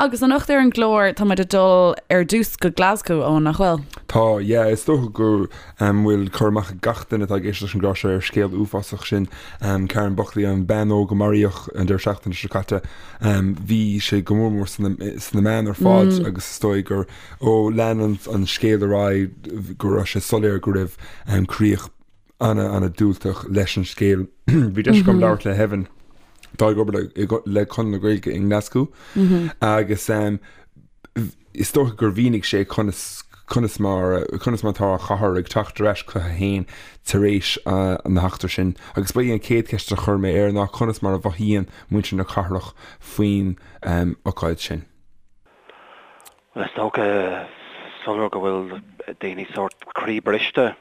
Agus anocht ar an gclár tá muid ag dul ar dtús go Glasgow, Eoin, nach bhfuil? Tá, yeah. Is dócha go bhfuil cur amach ag gach duine atá ag éisteacht leis an gclár seo ar scéal uafásach sin Karen Buckley, an bean óg a maraíodh an deireadh seachtaine seo caite. Bhí sé go mór mór sna meáin ar fad agus is dóigh gur ó lean an scéal ar aghaidh go raibh sé soiléir go raibh críoch ana-ana-diúltach leis an scéal. Bhí deis agam labhairt le hEvan, atá ag obair le Conradh na Gaeilge i nGlaschú agus is dócha gur mhínigh sé conas conas mar conas mar atá an chathair ag teacht ar ais chuici féin tar éis na heachtra sin. Agus ba í an chéad cheist a chuir mé air ná conas mar a mhothaíonn muintir na cathrach faoin ocáid sin. Bhuel, is dócha soiléir go bhfuil daoine sórt croí briste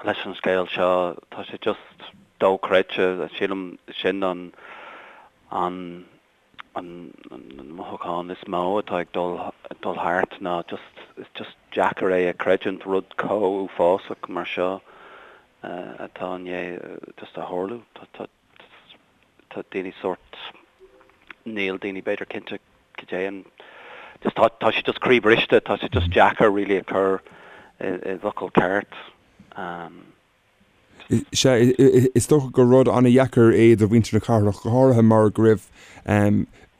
leis an scéal seo. Tá sé just dochreidte. Sílim sin an an an mothúchán is mó atá ag dul dul thart ná just is just deacair é a chreidiúint, rud chomh uafásach mar seo atá i ndiaidh just a tharlú. Tá tá tá daoine sórt níl daoine b'fhéidir cinnte cad é an just tá tá sé just croí briste tá sé just deacair really a chur i i bhfocal ceart. Um, Sea, is dócha gur rud an-dheacair é do mhuintir na cathrach, go háirithe mar go raibh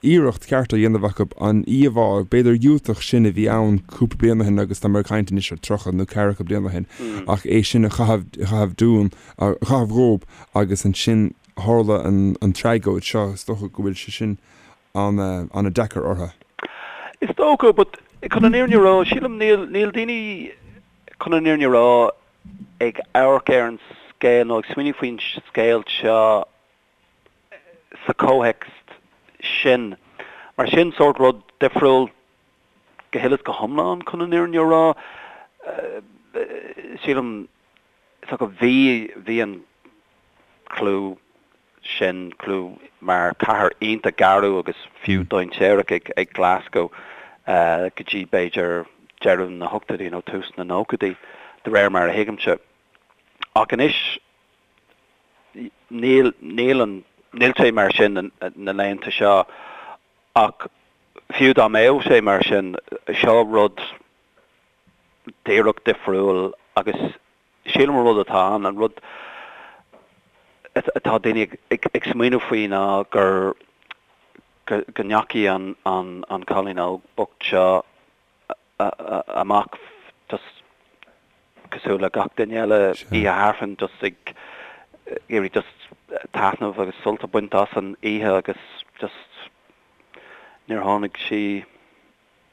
iarracht cheart á dhéanamh acu an íomhá, b'fhéidir dhiúltach sin a bhí ann cúpla bliain ó shin agus tá mé ag caint anois ar 30 nó ceathracha bliain ó shin, ach é sin a chaitheamh dúinn, a chaitheamh dhób agus ansin tharla an tragóid seo, is dócha go bhfuil sé sin an-deacair orthu. Is dócha, but chun an fhírinne a rá, sílim níl, níl daoine, chun an fhírinne a rá, ag amharc ar an scéal nó ag smaoineamh faoin scéal seo sa chomhthéacs sin. Mar sin sórt rud difriúil go huile is go hiomlán chun an fhírinne a rá. Sílim so go bhí bhí an clú sin, clú mar cathair iontach garbh agus fiú dainséarach ag Glasgow go dtí b'fhéidir deireadh na hochtóidí nó tús na nóchaidí, de réir mar a thuigimse. Ach anois níl, níl an, níl sé mar sin na laethanta seo ach fiú dá mbeadh sé mar sin, seo rud díreach difriúil agus Sílim an rud atá ann, an rud atá daoine ag smaoineamh faoi ná gur, go ndeachaigh an cailín óg bocht seo amach just cosúil le gach duine eile oíche Aifrinn just ag iarraidh just taitneamh agus sult a bhaint as an oíche agus just níor tháinig sí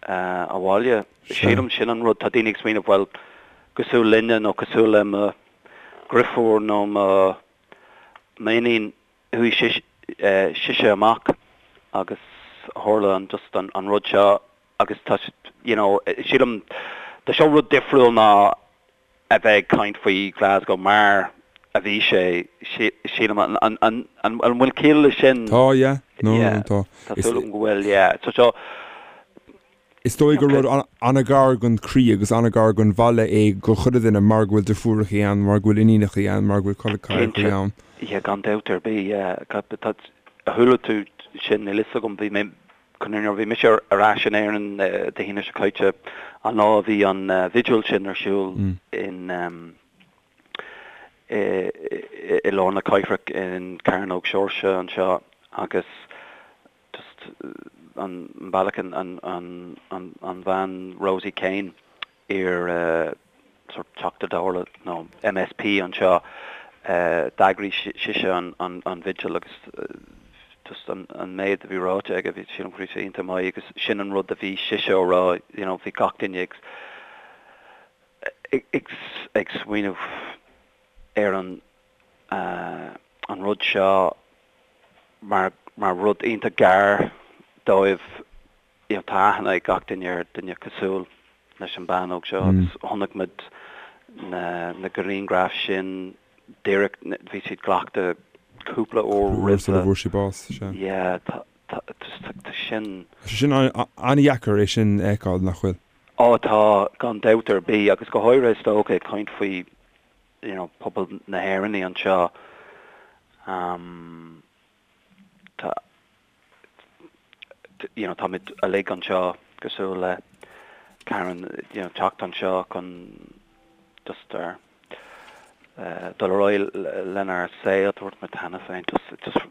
abhaile. Sílim sin an rud, tá daoine ag smaoineamh, bhuel, cosúil linne nó cosúil le mo dheirfiúr nó mo m'iníon, chuaigh sise amach agus tharla an just an rud seo agus tá, you know, sílim, tá seo rud difriúil ná a bheith ag caint faoi Glasgow mar a bhí sé, sílim. An bhfuil ciall leis sin? Tá, yeah. No, no, tá. Tá súil agam go bhfuil, yeah. So seo. Is dóigh gur rud an-ghar don chroí agus an-ghar don bhaile é do chuile dhuine mar go bhfuil deirfiúrachaí ann, mar go bhfuil iníonachaí ann, mar go bhfuil col ceathrachaí ann. Cinnte, yeah, gan dabht ar bith, yeah. Chuala tú sin, níl fhios agam, bhí mé Nuair a bhí mise ar ais in Éirinn Dé hAoine seo caite, an lá a bhí an vigil sin ar siúl in i lár na cathrach in Cearnóg Seoirse anseo agus just an bealach an an bhean Rosie Kane iar sort Teachta Dála nó MSP anseo, d'eagraigh sise an vigil agus just an méid a bhí ráite aige, bhí sílim go raibh sé iontach maith agus sin an rud a bhí sise á rá, you know, bhí gach duine ag ag ag smaoineamh ar an an rud seo mar mar rud iontach gar dóibh you know, tá aithne ag gach duine ar duine cosúil leis an bean óg seo agus chonaic muid na na grianghraif sin díreach, bhí siad glactha cúpla uair roimhe. Sula bhfuair sí bás, sea. Yeah, tá, tá, tá sin. Tá sé sin an-dheacair é sin a fheiceáil, nach bhfuil? Ó tá, gan dabht ar bith, agus go háirithe is dócha ag caint faoi, you know, pobal na hÉireannaí anseo, um, tá. you know táimid uilig anseo cosúil le Karen you know teacht anseo chun just ar dul ar aghaidh lenár saol, dúirt mé cheana féin just just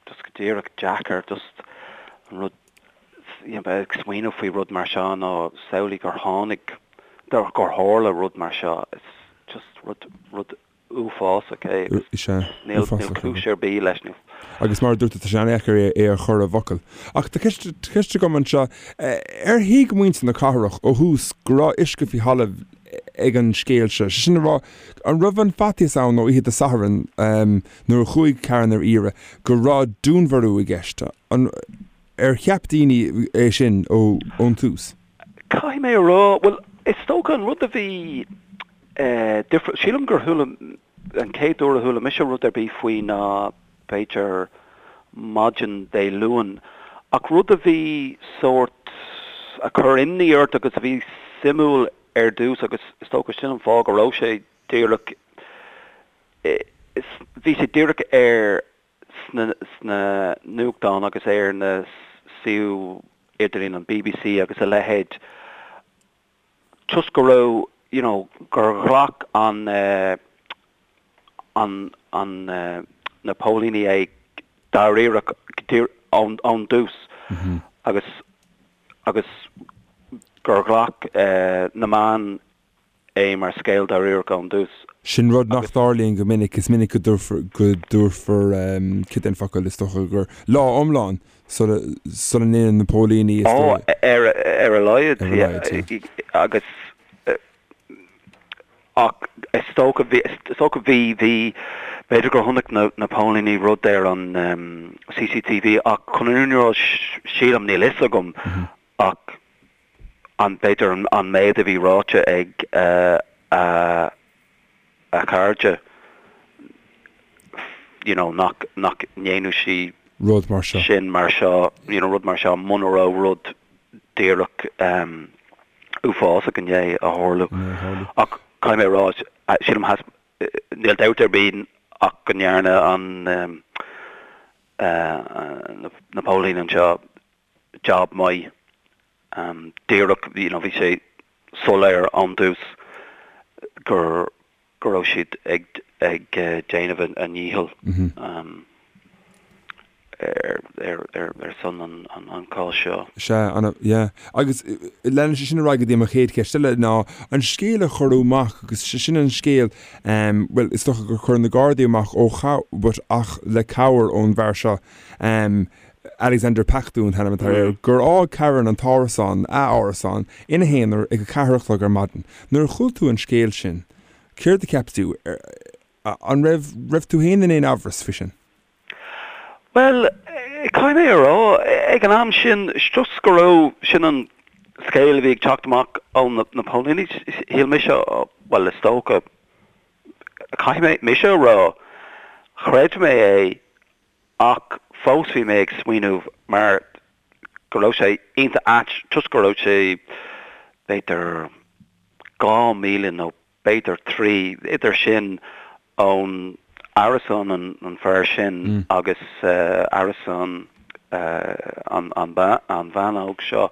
just go díreach deacair just an rud you know ag smaoineamh faoi rud mar seo nó samhlaigh gur tháinig gur tharla rud mar seo it's just rud rud uafásach é agus Sea, níl uafásach é. cúis ar bith leis. Níl. Agus mar a dúirt tú, tá sé an-dheacair é a chur i bhfocail. Ach tá ceist, tá ceist agam anseo, ar thuig muintir na cathrach ó thús go raibh uisce faoi thalamh ag an scéal seo? Sé sin a rá, an raibh an faitíos ann ó oíche Dé Sathairn nuair a chuaigh Karen ar iarraidh go raibh dúnmharú i gceist? An, ar cheap daoine é sin ón tús? Caithfidh mé a rá, bhuel, is dócha an rud a bhí difriúil. Sílim gur chuala, an chéad uair a chuala mise rud ar bith faoi ná b'fhéidir maidin Dé Luain. Ach rud a bhí sórt, a chuir imní ort agus a bhí suimiúil ar dtús agus is dócha sin an fáth go raibh sé díreach, bhí sé díreach ar sna, sna nuachtáin agus ar na suíomh idirlín an bbc agus a leithéid. toisc go raibh you know gur ghlac an an an na póilíní é dáiríreach ón ón dtús agus agus gur ghlac na meáin é mar scéal dáiríreach ón dtús. Sin rud nach dtarlaíonn go minic, is minic go dtabharfar go dtabharfar cad é an focal is dócha gur lá iomlán sula sula ndéanann na póilíní is dóigh. Ar ar a laghad, Ar a laghad, yeah. Agus ach is dócha bhí is dócha bhí bhí b'fhéidir gur chonaic na na póilíní rud ar an CCTV ach chun an fhírinne a rá sílim níl fhios agam ach an b'fhéidir an méid a bhí ráite ag a a cairde you know nach nach ndéanadh sí rud mar seo. sin mar seo you know rud mar seo muna raibh rud díreach um uafásach i ndiaidh a tharlú. Ach caithfidh mé a rá sílim has níl dabht ar bith ach go ndearna an um uh na póilíní anseo job maith um díreach you know bhí sé soiléir ón dtús gur go raibh siad ag ag déanamh a ndícheall um ar ar ar ar son an an an cás seo. Sea, ana, yeah. Agus leanann sé sin ar aghaidh go dtí mo chéad cheist eile ná an scéal a cuireadh amach agus sé sin an scéal um bhuel is dócha gur chuir na Gardaí amach ó but ach le cabhair ón bhfear seo um Alexander Pacteau an t-ainm atá air, gur fhág Karen an t-árasán, a árasán, ina haonar ag a ceathair a chlog ar maidin. Nuair a chuala tú an scéal sin, céard a cheap tú? An raibh, raibh tú féin in aon amhras faoi sin? Bhuel, caithfidh mé a rá, ag an am sin, toisc go raibh, sin an scéal a bhí ag teacht amach ó na póilíní, shíl mise, bhuel, is dócha, caithfidh mé, mise a rá, chreid mé é Ach fós bhí mé ag smaoineamh mar go raibh sé iontach ait toisc go raibh sé b'fhéidir 2,000 nó b'fhéidir 3, idir sin ón árasán an fear sin agus árasán an bhean óg seo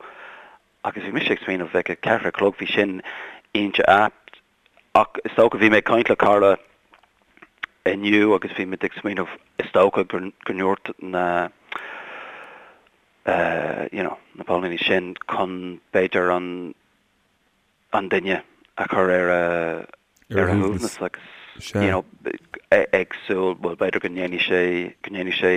agus bhí mise ag smaoineamh ag a ceathair a chlog bhí sin iontach ait Ach is dócha, bhí mé ag caint le cara inniu agus bhí muid ag smaoineamh, is dócha go ndúirt na you know na póilíní sin chun b'fhéidir an an duine a chur ar a ar a shuaimhneas agus you know ag súil, bhuel b'fhéidir go ndéanfaidh sé go ndéanfaidh sé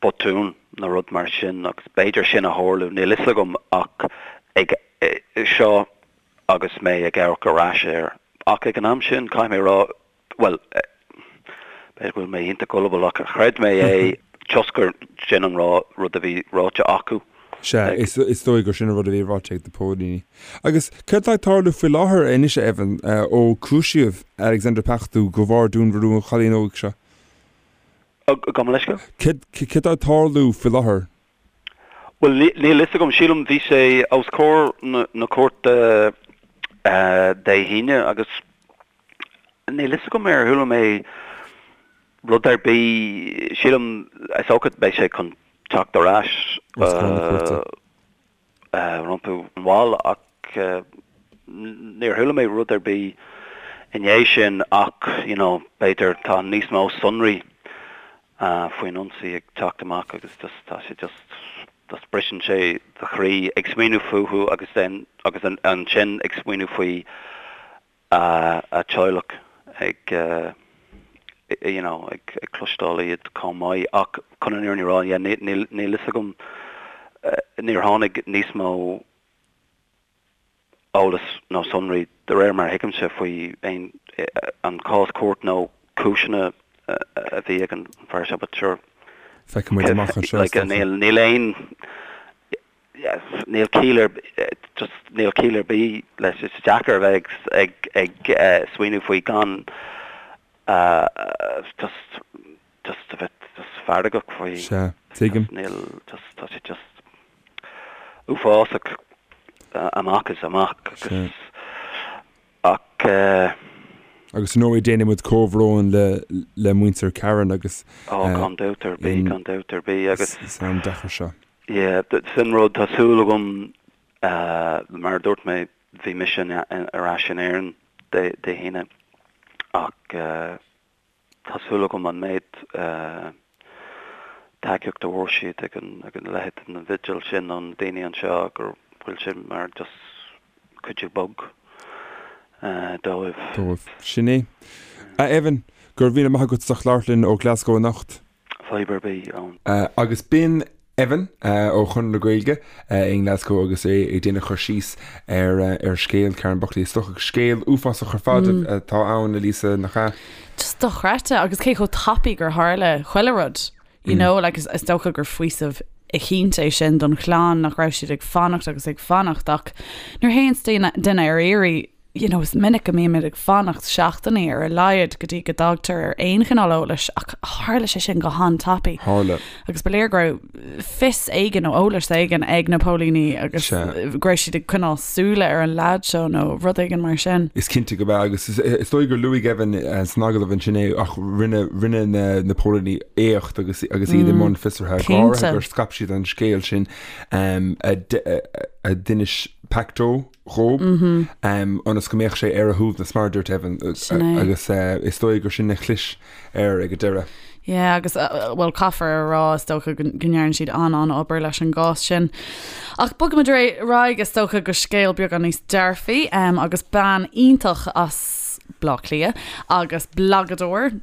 botún nó rud mar sin agus b'fhéidir sin a tharlú, níl fhios agam ach ag seo agus mé ag amharc ar ais air. Ach ag an am sin, caithfidh mé a rá, bhuel, b'fhéidir go bhfuil mé iontach gullible ach chreid mé é toisc gur sin an rud a bhí ráite acu. Sea, is dóigh gur sin an rud a bhí ráite ag na póilíní. Agus céard atá ag tarlú faoi láthair anois, a Evan, ó cúisíodh Alexander Pacteau de bharr dúnmharú an chailín óig seo? Gabh mo leithscéal? Céard atá ag tarlú faoi láthair? Bhuel, níl fhios agam. Sílim bhí sé os comhair na cúirte Dé hAoine agus níl fhios agam ar chuala mé rud ar bith. Sílim, is dócha beidh sé chun. teacht ar ais rompu mall ach níor chuala mé rud ar bith i ndiaidh sin ach you know b'fhéidir tá níos mó sonraí faoin ionsaí ag teacht amach agus just tá sé just just briseann sé do chroí ag smaoineamh fúthu agus then agus ansin ag smaoineamh faoi a teaghlach ag you know ag cloisteáil iad chomh maith ach chun an fhírinne a rá yeah níl níl fhios agam níor tháinig níos mó eolas nó sonraí de réir mar a thuigimse faoi aon an cás cúirt nó cúiseanna a bhí ag an bhfear seo but sure Feicfidh muid amach anseo like níl níl aon Níl ciall ar just níl ciall ar bith leis. Is deacair a bheith ag ag smaoineamh faoi gan just just a bheith just feargach faoi. Sea, tuigim. Níl just tá sé just uafásach amach is amach agus Ach. Agus ar ndóigh déanann muid comhbhrón le le muintir Karen agus. Ó gan dabht ar bith, gan dabht ar bith agus. San am deacair seo. Yeah, sin rud, tá súil agam, mar a dúirt mé, bhí mise ar ais in Éirinn Dé hAoine ach. Tá súil agam an méid tacaíocht a bhfuair siad ag an leithéid den bhigil sin ó na daoine anseo go bhfuil sé mar just cuidiú beag dóibh. Dóibh. Sin é. A Evan, go raibh míle maith agat as ucht labhairt linn ó Glasgow anocht. Fadhb ar bith ann. Agus b'in Evan ó Chonradh na Gaeilge i nGlasgow agus é ag déanamh cur síos ar ar scéal Karen Buckley. Is dócha scéal uafásach ar fad atá ann, a Lisa, nach ea? Just dochreidte agus cé chomh tapaidh gur tharla chuile rud. You know, like is is dócha gur faoiseamh eicínt é sin don chlann nach raibh siad ag fanacht agus ag fanacht ach nuair a théann duine duine ar iarraidh you know, is minic go mbímid ag fanacht seachtainí ar a laghad go dtí go dtagtar ar aon chineál eolais ach tharla sé sin go han-tapaidh. Tharla. Agus ba léir go raibh fios éigin nó eolas éigin ag na póilíní agus Sea. go raibh siad ag coinneáil súile ar an leaid seo nó rud éigin mar sin. Is cinnte go b'ea agus is is dóigh gur luaigh Evan san agallamh ansin é ach rinne rinne na na póilíní éacht agus agus iad i mbun fiosraithe go háirithe Cinnte. gur scaip siad an scéal sin a a d'inis Pacto dhób, ionas go mbeadh sé ar a shuaimhneas, mar a dúirt Evan, Sin é. agus is dóigh gur sin a chlis air ag an deireadh. Yeah, agus bhuel caithfear a rá is dócha go ndearna siad an-an-obair leis an gcás sin. Ach bogfaimid ar aghaidh is dócha go scéal beagán níos dearfaí agus bean iontach as Bleá Cliath agus blagadóir,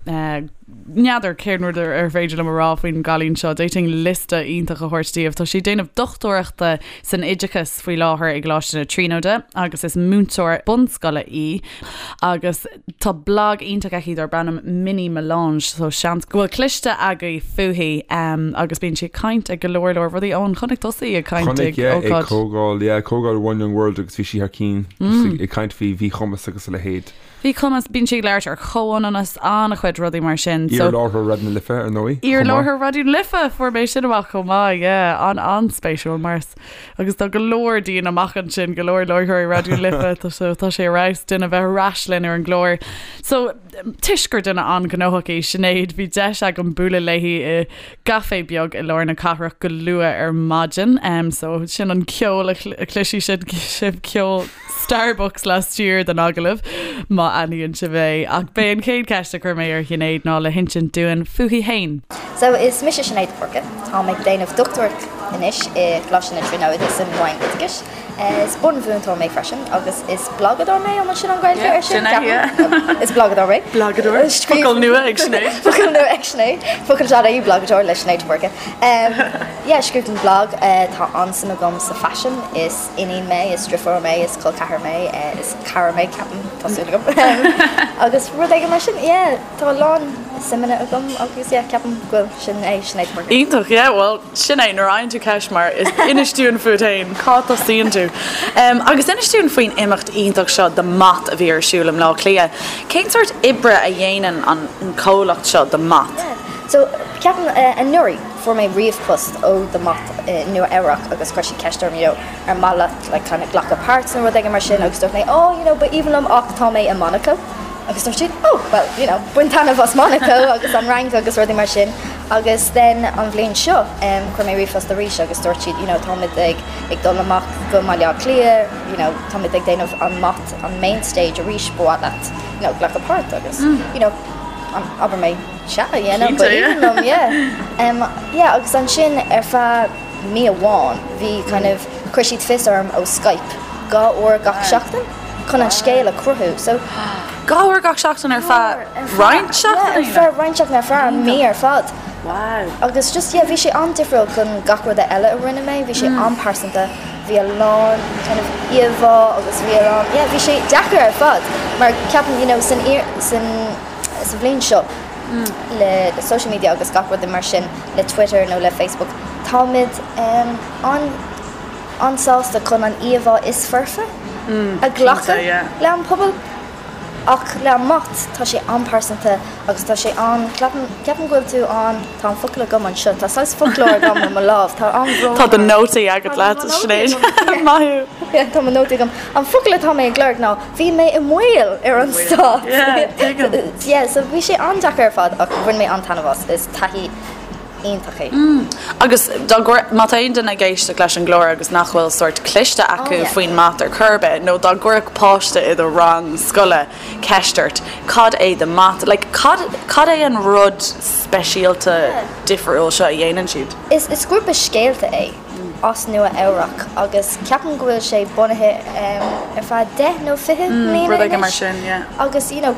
N'fheadar cén rud ar féidir liom a rá faoin gcailín seo, d'fhéadfainn liosta iontach a thabhairt daoibh. Tá sí ag déanamh dochtúireachta san oideachas faoi láthair i gColáiste na Tríonóide agus is múinteoir bunscoile í agus tá blag iontach aici darb ainm Mini Melange so seans go bhfuil cloiste agaibh fúithi agus bíonn sí ag caint ag go leor leor rudaí. Eoin, chonaic tusa í ag caint Chonaic, ag yeah, ag ócáid. comhdháil, yeah, comhdháil One Young World agus bhí sí thar cinn just ag caint faoi mhíchumas agus a leithéid. Mhíchumas, bíonn sí ag labhairt ar chomhionannas, an-chuid rudaí mar sin. So, Iar-láithreoir Raidió na Life, ar ndóigh, chomh maith. Iar-láithreoir Raidió na Life! Fuair mé sin amach chomh maith, yeah. An-an-spéisiúil mar is, agus tá go leor dínn amach ansin, go leor láithreoirí Raidió na Life, tá so tá sé ar fheabhas duine bheith ar ais linn ar an gclár. So, toisc gur duine an-ghnóthach í Sinéad, bhí deis agam bualadh léi i gcaifé beag i lár na cathrach go luath ar maidin. So, sin an ceol a chloisfidh sibh, ceol Starbucks laistiar den agallamh, má aithníonn sibh é. Ach b'é an chéad cheist a chuir mé ar Shinéad ná le hinsint dúinn fúithi fhéin. So, is mise Sinéad de Búrca. Táim ag déanamh dochtúireacht anois i gColáiste na Tríonóide san Roinn Oideachais. Is bunmhúinteoir mé freisin agus is blagadóir mé, an bhfuil sin an Ghaeilge air sin? Ceapaim. Is blagadóir mé. Blagadóir. Focal nua ag Sinéad. Focal nua ag Sinéad. Focal sean í blagadóir le Sinéad de Búrca. Yeah, scríobhaim blag. Tá an-suim agam sa faisean. Is iníon mé, is driofúr mé, is col ceathar mé, is cara mé, ceapaim, tá súil agam. Agus rud éigin mar sin, yeah, tá a lán suimeanna agam agus yeah, ceapaim go bhfuil sin é, Sinéad de Búrca. Iontach, yeah, bhuel, sin é, nuair a fhaigheann tú ceist mar inis dúinn fút fhéin, cá dtosaíonn tú? Agus inis dúinn faoin imeacht iontach seo The Mot a bhí ar siúl i mBleá Cliath. Cén sórt oibre a dhéanann an comhlacht seo The Mot? Yeah, so ceapaim anuraidh fuair mé ríomhphost ó The Mot i Nua Eabhrac agus chuir siad ceist orm you know ar mhaith leat like kind of glacadh páirt nó rud éigin mar sin agus dúirt mé oh you know ba aoibhinn liom ach tá mé i Monaco agus dúirt siad oh well you know bain taitneamh as Monaco agus an Fhrainc agus rudaí mar sin. Agus then an bhliain seo chuir mé ríomhphost arís agus dúirt siad you know táimid ag ag dul amach go mBaile Átha Cliath you know táimid ag déanamh an mat an main stage arís ba mhaith leat you know glacadh páirt agus you know abair mé sea you know ba aoibhinn liom yeah. Yeah agus ansin ar feadh mí amháin bhí kind of chuir siad fios orm ó Skype 2 uair gach seachtain chun an scéal a chruthú so 2 uair gach seachtain ar feadh roinnt seachtainí? Ar feadh roinnt seachtain ar feadh an mí ar fad. Wow. Agus just yeah bhí sé an-difriúil chun gach rud eile a rinne mé, bhí sé an-pearsanta, bhí a lán kind of íomhá agus bhí a lán yeah bhí sé deacair ar fad mar ceapaim you know san san sa bhliain seo le le social media agus gach rud mar sin le Twitter nó le Facebook táimid um, an an-sásta chun an íomhá is foirfe a ghlacadh le an pobal ach le an mat tá sé an-pearsanta agus tá sé an, ceapaim, ceapaim go bhfuil tú an, tá an focal agam anseo, tá saghas foclóir agam ar mo lámh, tá an-bhrón Tá do nótaí agat leat, Sinéad. Maith thú. Tá mo nótaí agam. An focal atá mé ag lorg ná bhí mé i mbaol ar an stát. Yeah, tuigim. Yeah, so bhí sé an-deacair ar fad ach bhain mé an-taitneamh as, is taithí iontach é. Agus dá gcuir, má tá aon duine ag éisteacht leis an gclár agus nach bhfuil sórt cliste acu faoin mat ar chor ar bith, nó dá gcuirfeadh páiste i do rang scoile ceist ort, cad é The Mat, like cad, cad é an rud speisialta difriúil seo a dhéanann siad? Is, is grúpa scéalta é as Nua Eabhrac agus ceapaim go bhfuil sé bunaithe ar feadh 10 nó 20 mbliana Rud éigin mar sin, yeah. Agus you know,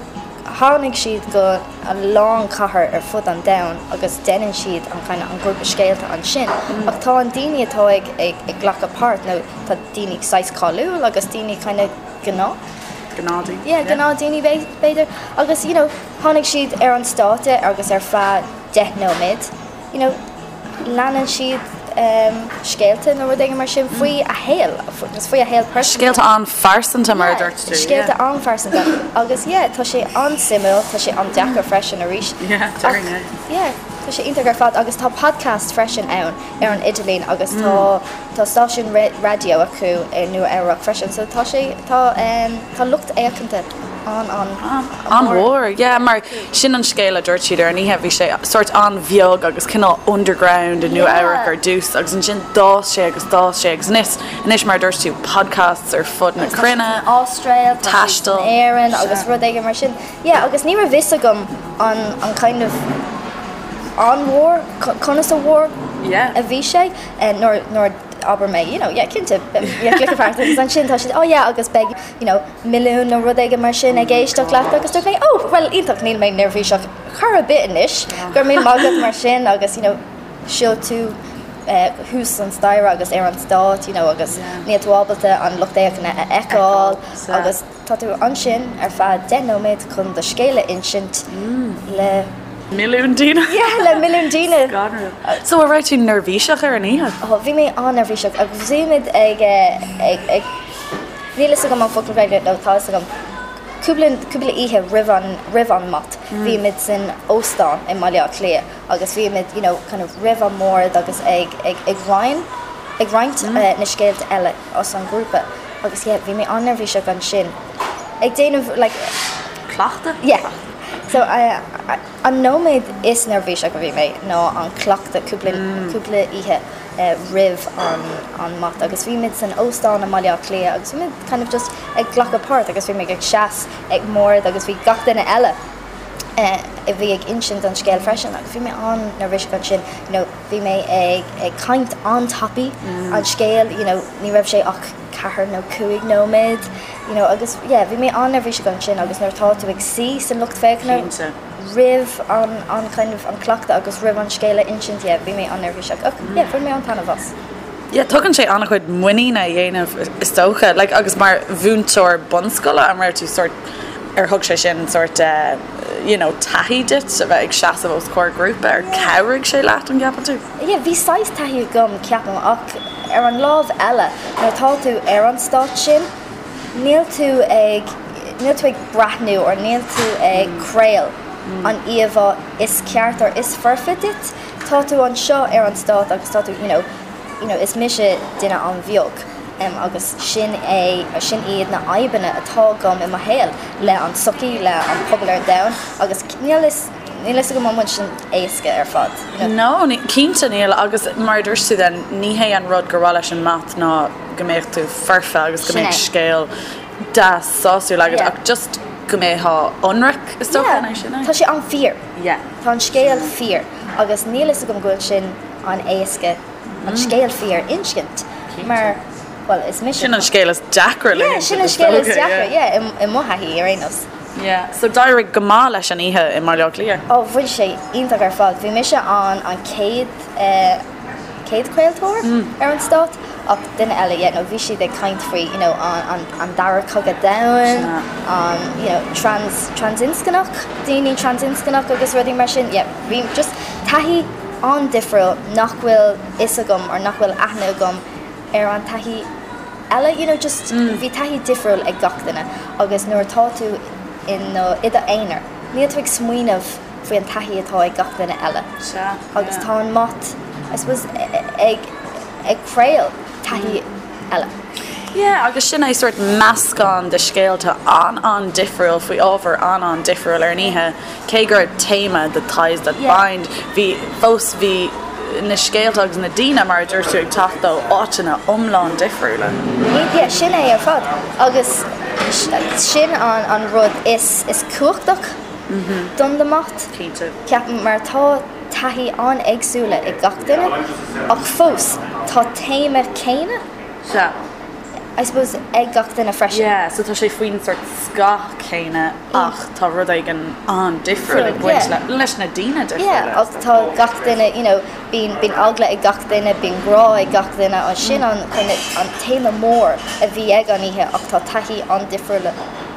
Tháinig siad go a lán cathair ar fud an domhain agus déanann siad an kind of an grúpa scéalta ansin ach tá an daoine atá ag ag ag glacadh páirt nó tá daoine saghas cáiliúil agus daoine kind of gnáth. Gnáthdaoine. Yeah, gnáthdaoine b'fhéidir agus you know tháinig siad ar an stáitse agus ar feadh 10 nóiméad you know leanann siad scéalta nó rud éigin mar sin faoi a shaol agus faoi a shaol pearsanta. Scéalta an-phearsanta mar a dúirt tú. Scéalta an-phearsanta agus yeah tá sé an-suimiúil, tá sé an-deacair freisin arís. Yeah, déarfainn é. Yeah, tá sé iontach ar fad agus tá podcast freisin ann ar an idirlíon agus tá tá stáisiún raidió acu i Nua Eabhrac freisin so tá sé tá tá lucht féachanta an an An-mhór, yeah, mar sin an scéal a dúirt siad ar an oíche, bhí sé sórt an-bheag agus cineál underground i Nua Eabhrac ar dtús agus ansin d'fhás sé agus d'fhás sé agus anois, anois mar a dúirt tú, podcasts ar fud na cruinne, Astráil, taisteal, Éirinn agus rud éigin mar sin. Yeah, agus ní raibh fhios agam an an kind of an-mhór, conas a mhór a bhí sé nuair nuair abair mé, you know, yeah, cinnte, yeah, glacadh páirt agus ansin tá siad, oh yeah, agus beidh, you know, milliún nó rud éigin mar sin ag éisteacht leat agus dúirt mé oh bhuel iontach níl mé neirbhíseach chor ar bith anois go raibh míle maith agat mar sin agus you know siúl tú thuas an staighre agus ar an stát you know agus níl tú ábalta an lucht féachana a fheiceáil agus tá tú ansin ar feadh 10 nóiméad chun do scéal a insint le milliún daoine. Yeah, le milliún daoine. Scanrúil. So an raibh tú neirbhíseach ar an oíche? Oh, bhí mé an-neirbhíseach agus bhí muid ag ag ag Níl fhios agam an focal Gaeilge, nó tá fhios agam, cúpla, cúpla oíche roimh an, roimh an mat, bhí muid san óstán i mBaile Átha Cliath agus bhí muid, you know, kind of roimh an mbord agus ag, ag, ag roinn, ag roinnt na scéalta eile as an ghrúpa agus yeah, bhí mé an-neirbhíseach ansin ag déanamh like. Cleachtadh? Yeah. So, an nóiméad is neirbhíseach a bhí mé ná an cleachtadh cúpla, cúpla oíche. roimh an mat agus bhí muid san óstán i mBaile Átha Cliath agus bhí muid kind of just ag glacadh páirt agus bhí muid ag seas ag mbord agus bhí gach duine eile a bhí ag insint an scéal freisin agus bhí mé an-neirbhíseach ansin you know bhí mé ag ag caint an-tapaidh an scéal you know ní raibh sé ach ceathair nó cúig nóiméad you know agus yeah bhí mé an-neirbhíseach ansin agus nuair atá tú ag suí san lucht féachana roimh an an kind of an cleachtadh agus roimh an scéal a insint yeah bhí mé an-neirbhíseach ach yeah bhain mé an-taitneamh as. Yeah tugann sé an-chuid muiníne a dhéanamh is dócha like agus mar mhúinteoir bunscoile an raibh tú sort ar thug sé sin sort eh you know taithí duit a bheith ag seasamh os comhair grúpa ar chabhraigh sé leat an gceapann tú? Yeah bhí saghas taithí agam ceapaim ach ar an lámh eile nuair atá tú ar an stát sin níl tú ag, níl tú ag breathnú or níl tú ag craol an íomhá is ceart or is foirfe duit, tá tú anseo ar an stát agus tá tú you know, you know is mise duine an-bheag em agus sin é, sin iad na fhadhbanna atá agam i mo shaol le an tsochaí, le an pobal ar an domhan agus níl fhios. Níl fhios agam an bhfuil sin éasca ar fad, you know. No, cinnte níl agus mar a dúirt tú then, ní hé an rud gur mhaith leis an MAT ná go mbeadh tú foirfe agus go mbeadh scéal deas sásúil agat ach just go mbeifeá ionraic is dócha, an é sin é? Tá sé an-fhíor. Yeah. Tá an scéal fíor agus níl fhios agam go bhfuil sin an-éasca an scéal fíor a insint mar, bhuel, is mise. Sin an scéal is deacra le hinsint. Yeah, sin an scéal is deacra, yeah, i mo thaithí ar aon nós. Yeah, so d'éirigh go maith leis an oíche i mBaile Átha Cliath? Oh, bhí sé iontach ar fad. Bhí mise an an chéad eh chéad chraoltóir ar an stát ach duine eile, yeah, no bhí siad ag caint faoi, you know, an an an dara cogadh domhain, an, you know, trans transinscneach, daoine transinscneach agus rudaí mar sin, yeah, bhí just taithí an-difriúil nach bhfuil fhios agam or nach bhfuil aithne agam ar an taithí eile, you know, just bhí taithí difriúil ag gach duine agus nuair atá tú in i do aonar, níl tú ag smaoineamh faoi an taithí atá ag gach duine eile. Sea, Agus tá an MAT, I suppose, ag ag craol taithí eile. Yeah, agus sin é sórt meascán de scéalta an-an-difriúil faoi ábhar an-an-difriúil ar an oíche. Cé go raibh téama the ties that bind, bhí, fós bhí na scéalta agus na daoine, mar a dúirt tú, ag teacht ó áiteanna iomlán difriúla. Yeah, sin é ar fad. Agus sin an an rud is is cumhachtach don the MAT. Cinnte. Ceapaim, mar tá taithí an-éagsúla ag gach duine, ach fós tá téama céanna. Sea. I suppose, ag gach duine freisin. Yeah, so tá sé faoin sort scáth céanna ach tá rud éigin an-difriúil ag baint le, leis na daoine difriúla. Yeah, ach tá gach duine, you know, bíonn, bíonn eagla ag gach duine, bíonn grá ag gach duine, an sin an kind of, an téama mór a bhí ag an oíche ach tá taithí an-difriúla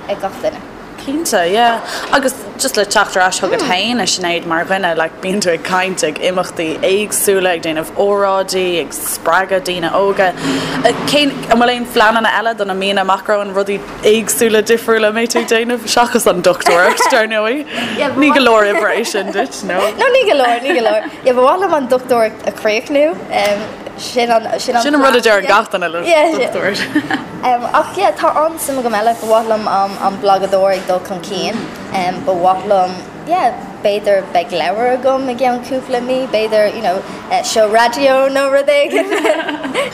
ag gach duine. Cinnte, yeah. Agus just le teacht ar ais chugat féin, a Sinéad, mar dhuine, like, bíonn tú ag caint ag imeachtaí éagsúla, ag déanamh óráidí, ag spreagadh daoine óga. Cén, an bhfuil aon phleananna eile do na míonna amach romhainn, rudaí éagsúla, difriúla a mbeidh tú ag déanamh, seachas an dochtúireacht, dar ndóigh? Ní go leor oibre é sin duit, no? No, ní go leor, ní go leor. Yeah, ba mhaith liom an dochtúireacht a chríochnú. Sin an, sin an Sin an rud a deir gach duine le dochtúir. Ach yeah, tá an-suim agam eile, ba mhaith liom an blagadóir ag dul chun cinn, ba mhaith liom, yeah, b'fhéidir beidh leabhar agam i gceann cúpla mí, b'fhéidir, you know, seó raidió nó rud éigin.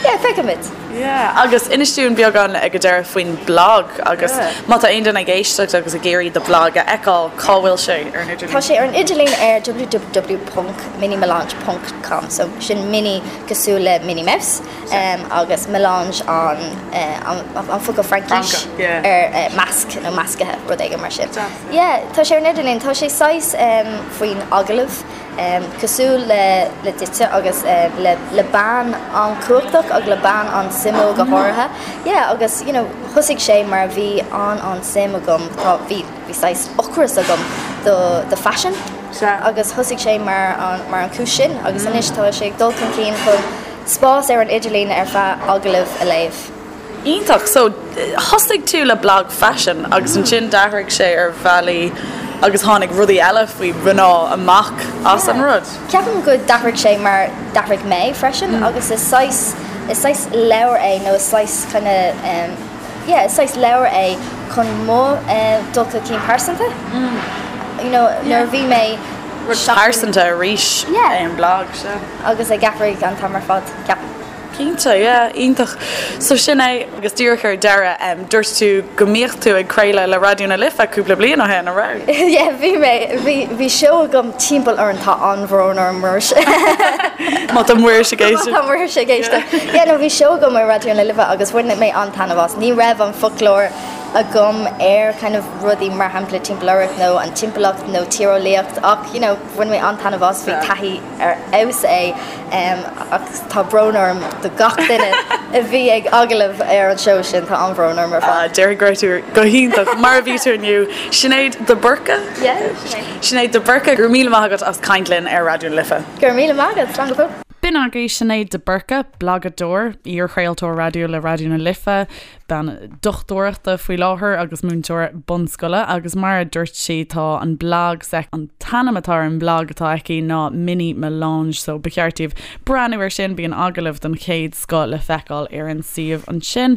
Yeah, feicfimid. Yeah, agus inis dúinn beagán ag an deireadh faoin blag agus má tá aon duine ag éisteacht agus ag iarraidh do bhlag a fheiceáil, cá bhfuil sé ar an idirlíon? Tá sé ar an idirlíon ar www.minimelange ponc com, so sin mini cosúil le Minnie Mouse. agus melange an an focal Fraincis ar measc nó meascaithe, rud éigin mar sin. Yeah, tá sé ar an idirlíon, tá sé saghas faoin agallamh, cosúil le le duitse agus le le bean an-chumhachtach agus le bean an-suimiúil go háirithe. Yeah, agus you know thosaigh sé mar bhí an-an-suim agam, tá, bhí, bhí saghas ocras agam do do faisean agus thosaigh sé mar an mar an chúis sin agus anois tá sé ag dul chun cinn chun Spás ar an idirlíon ar feadh agallaimh a léamh. Iontach! So, thosaigh tú le blag faisin agus ansin d'athraigh sé ar bhealaí agus tháinig rudaí eile faoi mhná amach as an rud. Ceapaim go d'athraigh sé mar d'athraigh mé freisin agus is saghas, is saghas leabhar é nó is saghas kind of yeah is saghas leabhar é chun mo dul chun cinn pearsanta you know nuair a bhí mé Rud pearsanta arís é an blag, sea. Agus ag athraigh an t-am ar fad, ceapaim. Cinnte, yeah, iontach. So sin é, agus díreach ar deireadh, dúirt tú go mbíodh tú ag craoladh le Raidió na Life cúpla bliain ó shin, an raibh? Yeah, bhí mé, bhí, bhí seó agam timpeall orainn, tá an-bhrón orm, Muiris. Má tá Muiris ag éisteacht. Má tá Muiris ag éisteacht. Yeah, no, bhí seó agam ar Raidió na Life agus bhain mé an-taitneamh as. Ní raibh an foclóir agam ar kind of rudaí mar shampla timpeallóireacht nó an timpeallacht nó tíreolaíocht ach you know bhain mé an-taitneamh as, bhí taithí ar fheabhas é ach tá brón orm do gach duine a bhí ag agallamh ar an seó sin, tá an-bhrón orm ar fad. Déarfainn go raibh tú go hiontach mar a bhí tú inniu. Sinéad de Búrca? Yeah, Sinéad. Sinéad de Búrca, go raibh míle maith agat as caint linn ar Raidió na Life. Go raibh míle maith agat, slán go fóill. B'in agaibh Sinéad de Búrca, blagadóir, iar-chraoltóir raidió le Raidió na Life, bean dochtúireachta faoi láthair agus múinteoir bunscoile agus mar a dúirt sí tá an blag s'aici, an t-ainm atá ar an mblag atá aici ná Mini Melange so ba cheart daoibh breathnú ar sin, bíonn agallaimh den chéad scoth le feiceáil ar an suíomh ansin.